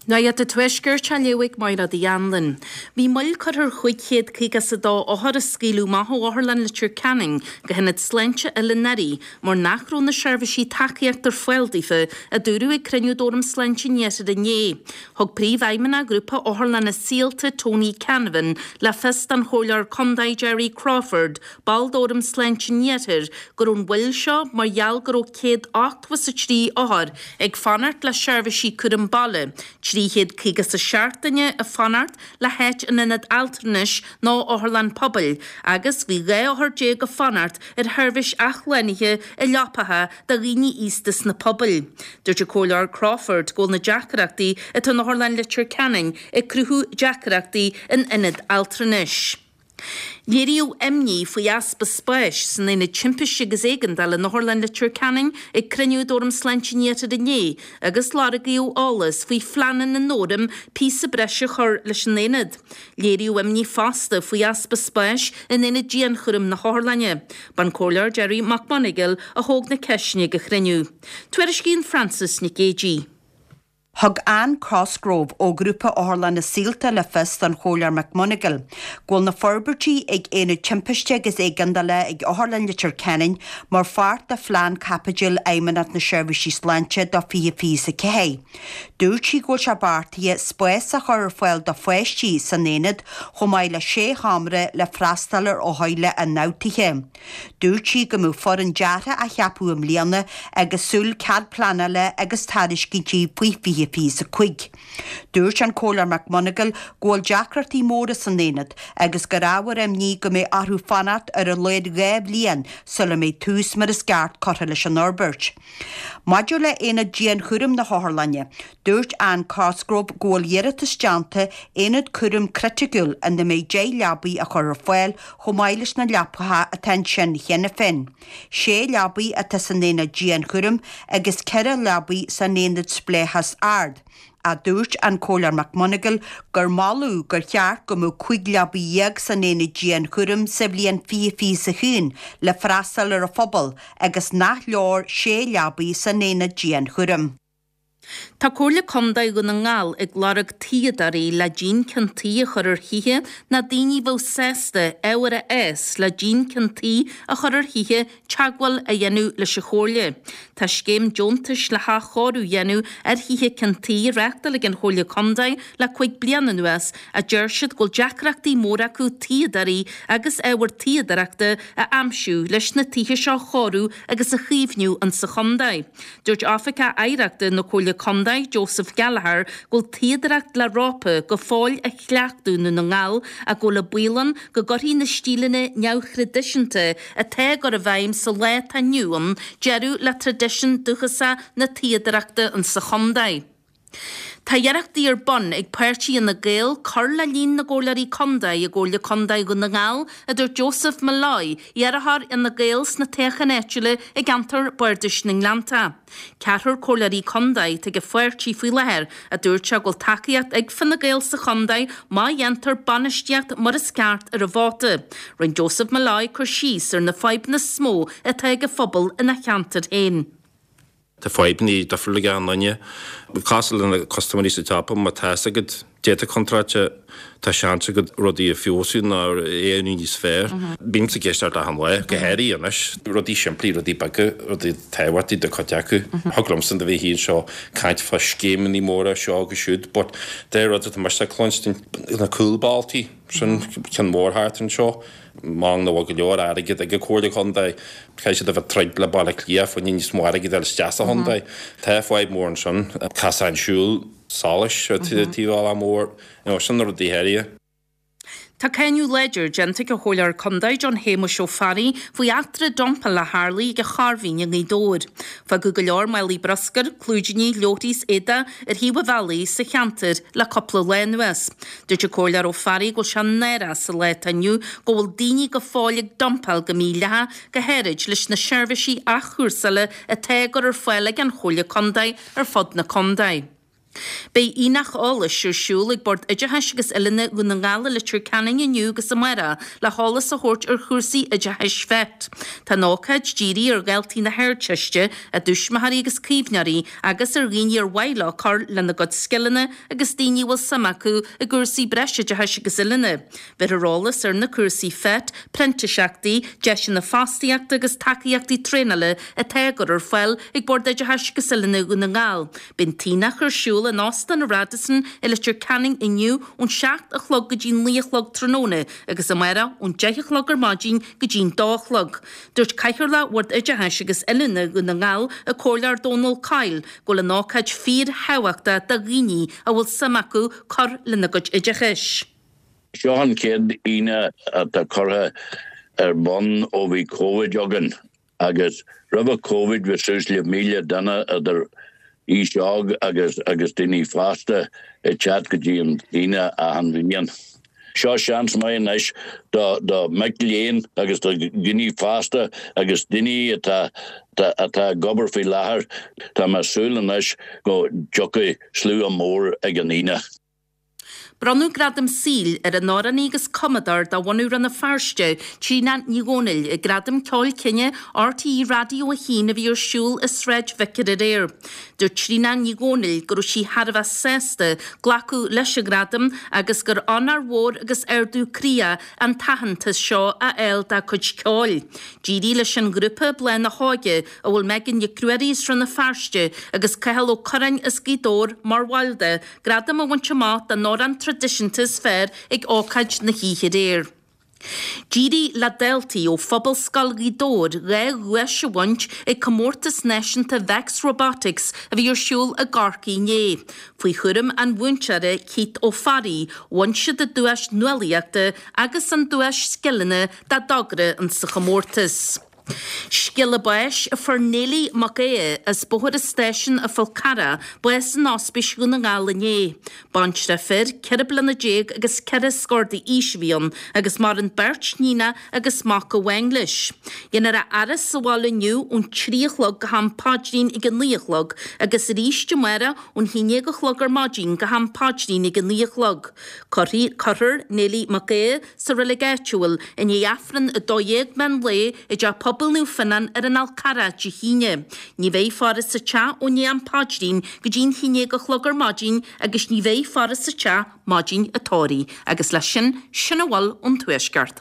Nuacht an Tuaiscirt á léamh ag Máire Uí Anluain. Bhí moill curtha ar 552 othar a scaoileadh amach ó Otharlann Leitir Ceanainn go hIonad Sláinte Oileán Fhairche mar nach raibh na seirbhísí tacaíochta ar fáil daofa, a dúradh ag cruinniú d'Fhóram Sláinte an Iarthair inné. Thug Príomhfheidhmeannach Ghrúpa Otharlanna Saolta, Tony Canavan, le fios don Chomhairleoir Contae Gerry Crawford, ball d'Fhóram Sláinte an Iarthair, go raibh an mhoill seo mar gheall go raibh 183 othar ag fanacht le seirbhísí cúram baile, 357 duine ag fanacht le háit in ionad altranais nó otharlann pobail agus bhí 12 othar ag fanacht ar sheirbhís athshlánaithe i leapacha do dhaoine aosta sna pobail. Dúirt an Comhairleoir Crawford go bhfuil na deacrachtaí atá in Otharlann Leitir Ceanainn ag cruthú deacrachtaí in ionaid altranais. Léiríodh imní faoi easpa spáis san Aonad Timpiste agus Éigeandála in Otharlann Leitir Ceanainn ag cruinniú d'Fhóram Sláinte an Iarthair inné agus lorgaíodh eolas faoi phleananna an Fhóraim píosa breise a chur leis an aonad. Léiríodh imní fosta faoi easpa spáis in Aonad Dianchúraim na hOtharlainne. B'an Comhairleoir Gerry Mac Monagail a thóg na ceisteanna ag an chruinniú. Tuairiscíonn Frances Nic Géadaigh. Thug Anne Cosgrove ó Ghrúpa Otharlanna Saolta le fios don Chomhairleoir McMonagail go bhfuil na forbairtí ag Aonad Timpiste agus Éigeandála ag Otharlann Leitir Ceanainn mar pháirt de phlean caipitil Fheidhmeannacht na Seirbhísí Sláinte do 2024. Dúirt sí go bhfuil sé beartaithe spás a chur ar fáil do pháistí san aonad chomh maith le sé sheomra le freastal ar othair le ionfhabhtuithe. Dúirt sí go mbeadh foireann deartha á cheapadh i mbliana agus súil cead pleanála agus tairiscintí faoi 2025. Dúirt an Comhairleoir McMonagail go bhfuil deacrachtaí móra san aonad agus gur ábhar imní go mbeidh orthu fanacht ar a laghad 2 bhliain sula mbeidh tús mar is ceart curtha leis an fhorbairt. Maidir le haonad dianchúraim na hotharlainne, dúirt Anne Cosgrove go bhfuil iarratas déanta aonad cúraim criticiúil ina mbeidh 10 leabaidh a chur ar fáil chomh maith leis na leapacha atá ansin cheana féin. Sé leabaidh atá san aonad dianchúraim agus 4 leabaidh san aonad spleáchas ard. Ach dúirt an Comhairleoir McMonagail gur moladh gur cheart go mbeadh 15 leabaidh san aonad dianchúraim sa bhliain 2021 le freastal ar an phobal agus nach leor sé leabaidh san aonad dianchúraim. Tá Comhairle Contae Dhún na nGall ag lorg tuíodóirí le díon ceann tuí a chur ar thithe nó daoine a bheadh sásta ábhar a fhás le díon ceann tuí a chur ar thithe teagmháil a dhéanamh leis an Chomhairle. Tá scéim deontais le hathchóiriú a dhéanamh ar thithe ceann tuí á reáchtáil ag an Chomhairle Contae le 5 bliana anuas ach deir siad go bhfuil deacrachtaí móra acu tuíodóirí agus ábhar tuíodóireachta a aimsiú leis na tithe seo a chóiriú agus a chaomhnú insa chontae. Dúirt Oifigeach Oidhreachta na Comhairle Contae, Joseph Gallagher, go bhfuil tuíodóireacht le rópa go fóill á chleachtadh i nDún na nGall ach go bhfuil an baol ann go gcuirfidh na stíleanna neamhthraidisiúnta atá á gcur i bhfeidhm sa lá atá inniu ann deireadh le traidisiún dúchasach na tuíodóireachta insa chontae. Tá iarrachtaí ar bun ag páirtí Fhine Gael cur le líon na gcomhairleoirí contae i gComhairle Contae Dhún na nGall, a dúirt Joseph Molloy, iarrthóir Fhine Gael sna toghcháin áitiúla i gceantar Bardais na nGleannta. Ceathrar comhairleoirí contae atá ag an pháirtí faoi láthair, a dúirt sé go bhfuil tacaíocht ag Fine Gael sa chontae má dhéantar bainistíocht mar is ceart ar an vóta. Rinne Joseph Molloy cur síos ar na fadhbanna is mó atá ag an phobal ina cheantar féin. Tá fadhbanna difriúla ag achan duine. Cosúil le na custaiméirí sa tsiopa, má tá fhios agat dáta contráilte, tá seans agat rudaí a feabhsú nó a dhéanamh níos fearr. Bímse ag éisteacht achan lá, go háirithe anois. Rudaí simplí, rudaí beaga, rudaí tábhachtaí do chuid acu. Thig liomsa a bheith anseo ag caint fá scéimeanna móra seo agus siúd, but de rud atá mise ag cluinstin, na cúlbhealtaí, sin ceann mór thart anseo. Mar nach bhfuil go leor airgead ag an Comhairle Contae, caithfidh siad a bheith ag troid le Baile Átha Cliath fá choinne níos mó airgid a fháil isteach sa chontae. Tá fadhb mór ansin, casán siúil, solais ar taobh bealach mór, you know, sin na rudaí áirithe. Tá cáineadh láidir déanta ag an Chomhairleoir Contae John Shéamuis Ó Fearraigh faoi eachtra dumpála a tharlaigh ag an Chorrmhín i nGaoth Dobhair. Fágadh go leor málaí bruscair, clúidíní, leabharthaí is éadaigh ar thaobh an bhealaigh sa cheantar le cúpla lá anuas. Dúirt an Comhairleoir Ó Fearraigh go bhfuil sé náireach sa lá atá inniu go bhfuil daoine go fóill ag dumpáil go mídhleathach, go háirid leis na seirbhísí athchúrsála atá á gcur ar fáil ag an Chomhairle Contae ar fud na contae. Beidh aonach eolais ar siúl ag Bord Oideachais agus Oiliúna Dhún na nGall i Leitir Ceanainn inniu agus amárach le heolas a thabhairt ar chúrsaí oideachais FET. Tá an ócáid dírithe ar dhaltaí na hArdteiste, a dtuismitheoirí agus caomhnóirí agus ar dhaoine ar mhaith leo cur lena gcuid scileanna agus daoine a bhfuil suim acu i gcúrsaí breisoideachais agus oiliúna. Bheirfear eolas ar na cúrsaí FET, printíseachtaí, deiseanna fostaíochta agus tacaíochtaí traenála atá á gcur ar fáil ag Bord Oideachais agus Oiliúna Dhún na nGall. Beidh an t-aonach ar siúl in Óstán an Radisson i Leitir Ceanainn inniu ón 7 a chlog go dtí 9 a chlog tráthnóna agus amárach ón 10 a chlog ar maidin go dtí'n 2 a chlog. Dúirt Cathaoirleach Bhord Oideachais agus Oiliúna Dhún na nGall, an Comhairleoir Dónal Coyle, go bhfuil an ócáid fíor-thábhachtach do dhaoine a bhfuil suim acu cur lena gcuid oideachais. Seo an chéad aonach atá curtha ar bun ó bhí Covid againn agus roimhe Covid bhí suas le 1,000 duine idir aois óg agus agus daoine fásta ag teacht go dtí an t-aonach achan bhliain. Seo seans maith anois do do mic léinn agus do dhaoine fásta agus daoine atá atá ag obair faoi láthair. Tá mé ag súil anois go dtiocfaidh slua mór ag an aonach. Bronnadh Gradam Saoil ar an amhránaí agus cumadóir de bhunadh Rann na Feirste, Tríona Ní Dhomhnaill, ag Gradaim Ceoil Cine RTÉ Raidió 1 a bhí ar siúl i Sráid Vicar aréir. Dúirt Tríona Ní Dhomhnaill go raibh sí thar a bheith sásta glacadh leis an ghradam agus gur onóir mhór agus ardú croí é an t-aitheantas seo a fháil dá cuid ceoil. D'éirigh leis an ghrúpa Bláth na hÓige, a bhfuil Megan Nic Ruairí as Rann na Feirste agus Cathal Ó Curráin as Gaoth Dobhair mar bhaill de, gradam a bhaint amach don amhrán traidisiúnta is fearr ag ócáid na hoíche aréir. D'éirigh le daltaí ó Phobalscoil Ghaoth Dobhair 2 dhuais a bhaint ag comórtas náisiúnta Vex Robotics a bhí ar siúl i gCorcaigh inné. Faoi chúram an mhúinteora Keith Ó Fearraigh, bhain siad an duais nuálaíochta agus an duais scileanna dá dtogra insa chomórtas. Scéala báis a fuair Neilí Mac Aodha as Bóthar an Stáisiúin an Fhál Carrach bás in Ospís Dhún na nGall inné. Baintreach fir, 14 bliana agus ceithre scór d'aois a bhí ann agus maireann beirt níonach agus mac amháin leis. Dhéanfar a fhaire sa bhaile inniu ón 3 a chlog go ham paidrín ag a 9 a chlog agus arís amárach ón 11 a chlog ar maidin go ham paidrín ag a 9 a chlog. Cuirfear Neilí Mac Aodha sa reilig áitiúil i ndiaidh Aifreann 12 meán lae i dTeach Pobail Naomh Fionnán ar an Fhál Carrach Dé hAoine. Ní bheidh faire sa teach ó ndiaidh am paidrín go dtí'n 11 a chlog ar maidin agus ní bheidh faire sa teach maidin an tórraimh. Agus leis sin, sin a bhfuil ón Tuaisceart.